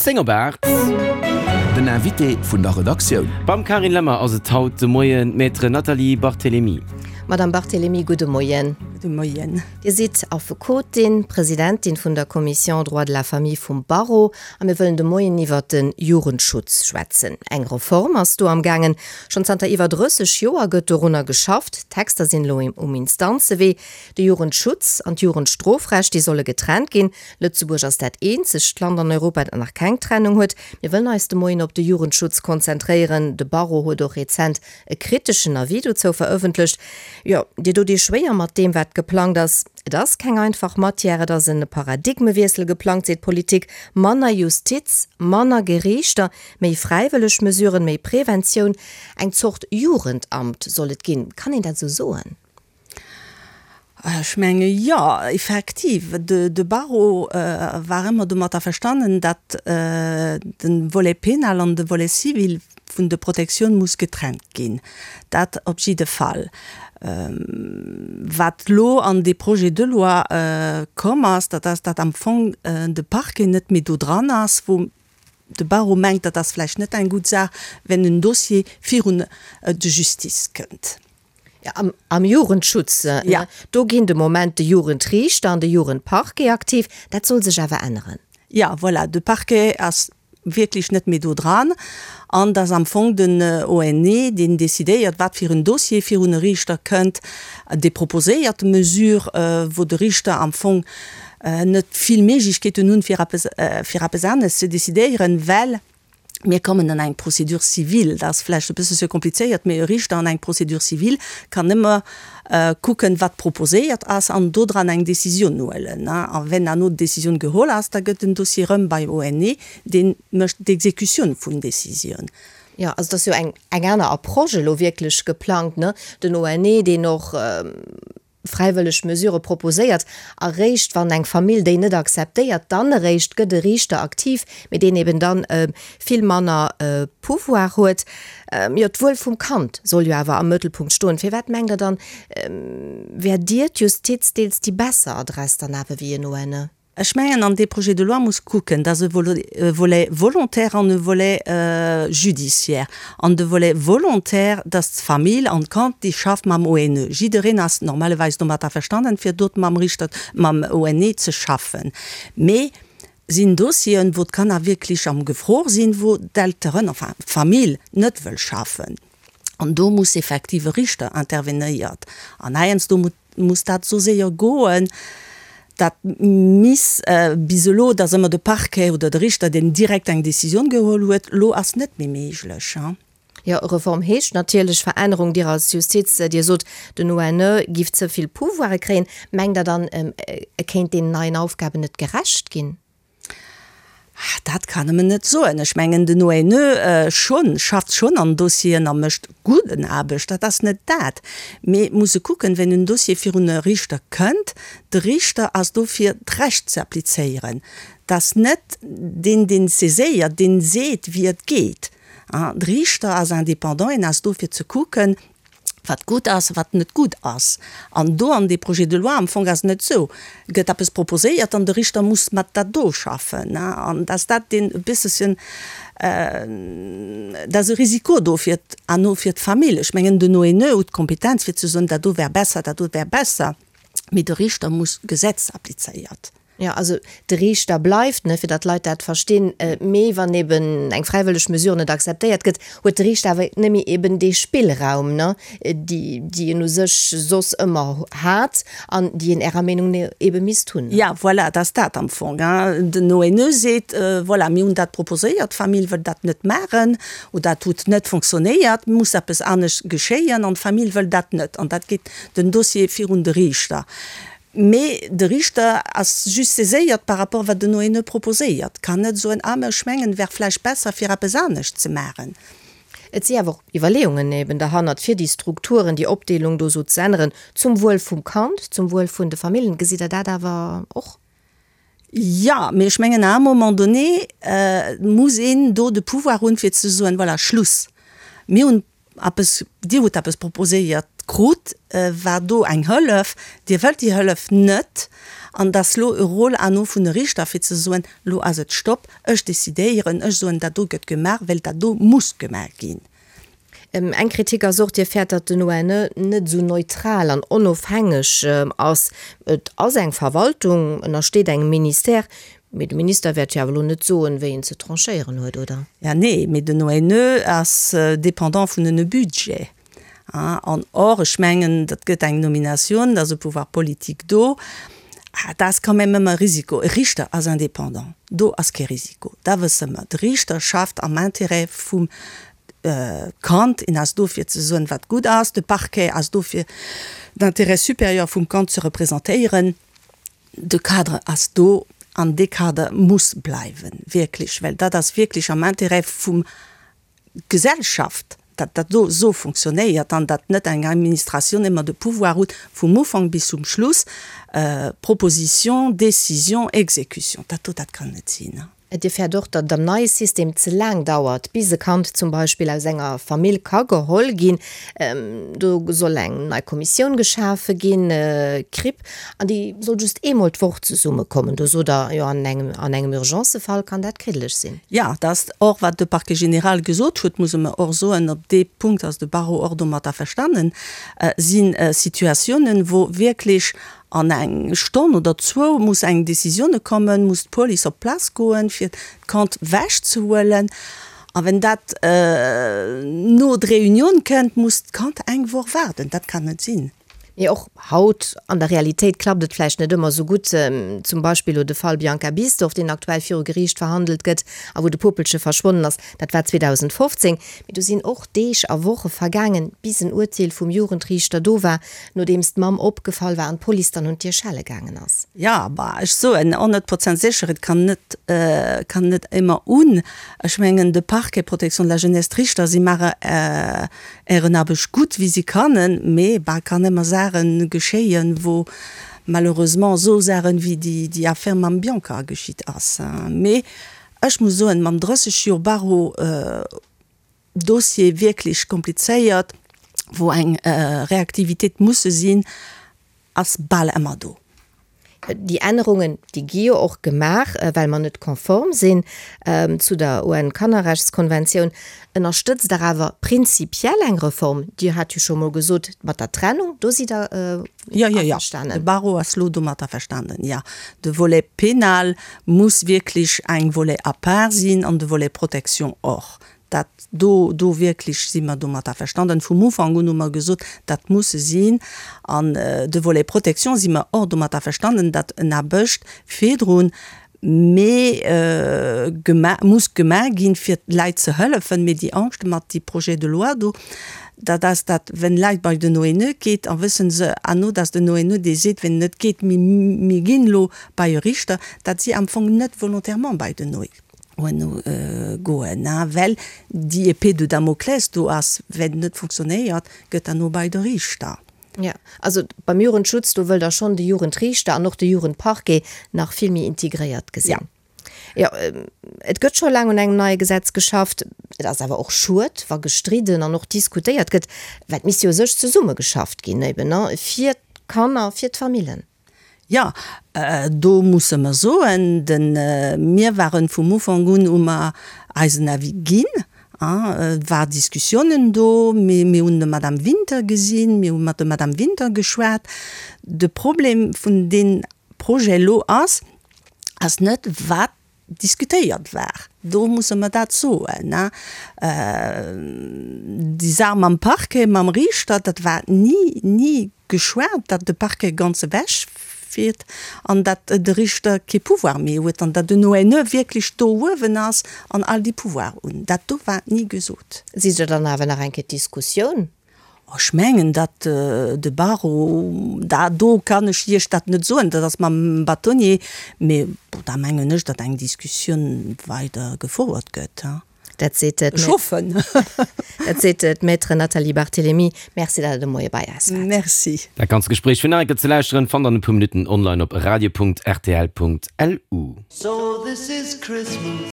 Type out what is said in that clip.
10 op 8. Den Invité vun der Redaktioun. Beim Carine Lemmer ass et haut de Moien d'Maître Nathalie Barthelemy. Madame Barthelemy, gudde Moien. Gudde Moien. Dir sidd Affekotin, Presidentin vun der Commission Droit de la famille vum Barreau a mir wëllen de Moien iwwert de Jugendschutz schwätzen. Eng Reform ass do am gaangen. Schonn zanter iwwer 30 Joer gëtt dorunner geschafft. D'Texter sinn elo um Instanzewee. De Jugendschutz an d'Jugendstrofrecht, déi solle getrennt ginn. Lëtzebuerg ass dat eenzegt Land an Europa, dat nach keng Trennung huet. Mir wëllen eis de Moien op de Jugendschutz konzentréieren. De Barreau huet och rezent e kriteschen Avis dozou verëffentlecht. Jo, Dir dot Iech schwéier mat deem, wat geplangt ass. Et ass keng einfach Matière, et ass e Paradigmewiessel geplangt, seet d'Politik. Manner Justiz, manner Geriichter, méi fräiwëlleg Mesuren, méi Preventioun. Eng Zort Jugendamt soll et ginn. Kann een dat esou soen? Ech menge jo, effektiv. De Barreau war ëmmer domat averstanen, datt de Volet pénal an de Volet civil vun de Protektioun muss getrennt ginn. Dat op jidde Fall. Wat elo an dee Projet de loi komm ass, dat ass, datt am Fong de Parquet net méi do dran ass, wou de Barreau mengt, dat ass vläicht net eng gutt Saach, wenn en Dossier virun de Justice kënnt. Ja, am Jugendschutz, ja. Do ginn de Moment de Jugendriichter an de Jugendparquet aktiv. Dat soll sech awer änneren. Ja, voilà, de Parquet ass wierklech net méi do dran an et ass am Fong den ONE, deen decidéiert, wat fir en Dossier virun e Riichter kënnt, dee proposéiert d'Mesure, wou de Riichter am Fong net vill Méiglechkeeten hunn, fir eppes, fir eppes anescht ze decidéieren, well Mir kommen an eng Procédure civile, dat ass vläicht e bëssche komplizéiert, mee e Riichter an eng Procédure civile kann nëmme kucken, wat proposéiert ass, an dodran eng Décisioun huelen. A wenn herno d'Décisioun geholl ass, da gëtt den Dossier erëm bei ONE, dee mécht d'Exécutioun vun Décisioun. Jo, also et ass jo eng aner Approche elo wierklech geplangt, ne? Den ONE, deen och fräiwëlleg Mesure proposéiert, eréischt wann eng Famill déi net akzeptéiert, dann eréischt gëtt e Riichter aktiv, mee deen eben dann vill manner Pouvoir huet. Jo, d'Wuel vum Kand soll jo awer am Mëttelpunkt stoen. Firwat mengt Der dann, wär Dir, d'Justiz, deels déi besser Adress dann awer wéi en ONE? Ech mengen, an dee Projet de loi muss kucken, dat ass e Volet volontaire an e Volet judiciaire. An de Volet volontaire, dat ass d'Famill an d'Kand, déi schafft mam ONE. Jiddereen ass normalerweis domat averstanden, fir dot mam Richter, mam ONE ze schaffen. Mee sinn Dossieren, wou d'Kanner wierklech am Gefor sinn, wou d'Elteren, enfin d'Famill net wëll schaffen. An do muss effektiv e Richter intervenéiert. An heiansdo muss dat esou séier goen, dat miss bis elo, et ass ëmmer de Parquet oder de Richter, deen direkt eng Décisioun geholl huet. Elo ass net méi méiglech. Jo, Reform heescht natierlech Verännerung. Dir als Justiz, Dir sot, den ONE giff ze vill Pouvoire kréien. Mengt Der dann, e kéint deenen neien Aufgaben net gerecht ginn? Dat kann e mer net soen. Ech mengen, den ONE schonn, schafft schonn an Dossieren a mécht gudden Aarbecht, dat ass net dat. Mee et muss e kucken, wenn en Dossier virun e Riichter kënnt, de Riichter ass do fir d'Recht ze applizéieren. Dat ass net deen, deen saiséiert, deen seet, wéi et geet. De Riichter ass indépendant, en ass do fir ze kucken, wat gutt ass, wat net gutt ass. An do an dee Projet de loi am Fong ass et net esou, gëtt eppes proposéiert an de Richter muss mat dat do schaffen. An dass dat deen e bësselchen, dat ass e Risiko do fir herno fir d'Famill. Ech mengen den ONE huet d'Kompetenz fir ze soen, dat do wär besser, dat do wär besser, mee de Richter muss d'Gesetz applizéiert. Jo, also de Riichter bleift, ne, fir datt d'Leit dat verstinn. Mee wann eben eng fräiwëlleg Mesure net akzeptéiert gëtt, huet de Riichter awer net méi eben dee Spillraum, ne, déi, déi en u sech soss ëmmer hat an déi en Ärer Meenung no ebe misst hunn. Ja, voilà, et ass dat am Fong. Den ONE seet, voilà, mir hunn dat proposéiert, d'Famill wëll dat net maachen oder dat huet net fonctionnéiert, muss eppes anescht geschéien an d'Famill wëll dat net an dat geet den Dossier virun de Riichter. Mee de Riichter ass just saiséiert par rapport wat den ONE proposéiert, kann net soen, ah mä ech mengen, wär vläicht besser fir eppes anescht ze maachen. Et si awer och Iwwerleeungen eben derhannert, fir déi Strukturen, déi Opdeelung do esou ze änneren, zum Wuel vum Kand, zum Wuel vun de Famillen. Gesitt Der dat awer och? Jo, mee ech mengen à un moment donné muss een do de Pouvoir hunn, fir ze soen, voilà, Schluss, mir hunn Eppes, Dir hutt eppes proposéiert. krut, war do eng Hëllef, Dir wëllt déi Hëllef net an et ass lo e Rôle à nous vun de Richter fir ze soen, lo ass et Stopp, ech décidéieren, ech soen, dat do gëtt gemaach, well dat do muss gemaach ginn. Eng Kritik ass och, Dir fäert, datt den ONE net esou neutral an onofhängeg ass. Et ass eng Verwaltung, ënnersteet engem Ministère, mee de Minister wäert jo awer elo net soen, wéi en ze tranchéieren huet, oder? Ja, nee, mee den ONE ass dépendant vun en Budget. An or, ech mengen, dat gëtt eng Nominatioun, da ass e Pouvoir politique do. Dat ass quand même ëmmer e Risiko. E Richter ass indépendant, do ass kee Risiko, da wësse mer, de Richter schafft am Intérêt vum Kand, en ass do fir ze soen, wat gutt ass, de Parquet ass do fir d'Intérêt supérieur vum Kand ze representéieren. De Cadre ass do an dee Kader muss bleiwen, wierklech, well dat ass wierklech am Intérêt vum Gesellschaft, datt dat do esou fonctionnéiert an datt net eng Administratioun ëmmer de Pouvoir huet vum Ufank bis zum Schluss, Proposition, Décision, Exécution. Dat do, dat kann net sinn. Dir fäert och, datt et am neie System ze laang dauert, bis e Kand zum Beispill aus enger Famill ka geholl ginn. Do soll eng nei Kommissioun geschafe ginn, CRIP, an déi soll just eemol d'Woch zesummekommen. Do sot Der, jo, an engem, an engem Urgencefall kann dat kriddeleg sinn. Jo, dat ass och, wat de Parquet général gesot huet, musse mer och soen, op dee Punkt ass de Barreau och domat averstanen, si Situatiounen, wou wierklech An eng Stonn oder zwou muss eng Decisionne kommen, muss d'Police op d'Plaz goen, fir d'Kand wech ze huelen. A wenn dat no d'Reunioun kënnt, muss d'Kand eng Woch waarden. Dat kann net sinn. Mee och haut an der Realitéit klappt et vläicht net ëmmer esou gutt. Zum Beispill elo de Fall Bianca Bisdorff, deen aktuell viru Geriicht verhandelt gëtt a wou de Puppelche verschwonnen ass. Dat war 2015. Mee do sinn och Deeg a Woche vergaangen, bis en Urteel vum Jugendriichter do war, nodeems d'Mamm opgefall war an d'Police dann un d'Dier schelle gaangen ass. Jo, bah, ech soen 100 Prozent sécher, et kann net, kann net émmer un. Ech mengen, de Parquet, Protection de la jeunesse, d'Richter, si maache ären Aarbecht gutt, wéi si kannen, mee, bah, kann émmer Saache geschéien, wou malheureusement esou Saachen wéi déi, déi Affaire mam Bianca geschitt ass. Mee ech muss soen, mam 30 Joer Barreau, Dossier wierklech komplizéiert, wou eng Reaktivitéit musse sinn, ass bal ëmmer do. Déi Ännerungen, déi gi jo och gemaach, well mer net konform sinn zu der UN-Kannerrechtskonventioun. Ënnerstëtzt Der awer prinzipiell eng Reform? Dir hat jo scho mol gesot, mat der Trennung, do sidd Der Jo, jo, jo, de Barreau ass lo domat averstanen, jo. De Volet pénal muss wierklech eng Volet à part sinn an de Volet Protection och. Dat do, do wierklech si mer domat averstanden. Vum Ufank un hu mer gesot, dat muss sinn. An de Volet Protection si mer och domat averstanden, datt en Aarbecht virdrun méi gema muss gemaach ginn, fir d'Leit ze hëllefen. Mee déi Angscht mat déi Projet de loi do, dat ass dat, wenn Leit bei den ONE geet, a wëssen se herno, datt den ONE dee seet, wenn et net geet, mir, mir ginn elo bei e Richter, datt si am Fong net volontairement bei den ONE goen, well déi Épée de Damoclès do ass, wenn et net funktionéiert, gëtt herno bei de Richter. Jo, also beim Jugendschutz, do wëllt Der schonn de Jugendriichter an och de Jugendparquet nach vill méi integréiert gesinn. Jo, et gëtt scho laang un engem neie Gesetz geschafft. Et ass awer och schued, wa gestridden an och diskutéiert gëtt, well et misst jo u sech zesummegeschafft ginn, eben, fir d'Kanner, fir d'Famillen. Jo, do musse mer soen, de mir waren vum Ufank un, hu mer eisen Avis ginn. Et war Diskussiounen do, mee mir hunn de Madame Winter gesinn, mir hu mat der Madame Winter geschwat. De Problem vun deem Projet elo ass, ass net wat diskutéiert war. Do musse mer dat soen. Déi Saach mam Parquet, mam Riichter, dat war ni, ni geschwat, datt de Parquet ganz ewech fiert an datt de Riichter kee Pouvoir méi huet an datt den ONE wierklech do uewen ass an all déi Pouvoir hunn. Dat do war ni gesot. Sidd Der dann awer nach eng Kéier d'Diskussioun Ech mengen, datt de Barreau, da do kann ech Iech dat net soen, dat ass mam Bâtonnier, mee bon, da mengen ech, datt eng Diskussioun weider gefouert gëtt. Dat seet Ech hoffen. Dat seet d'Maître Nathalie Barthelemy. Merci, datt Der de Moie bei eis waart. Merci. Dat ganzt Gespréich fir nach eng Kéier ze lauschteren, fannt der an e puer Minutten online op radio.rtl.lu. So this is Christmas.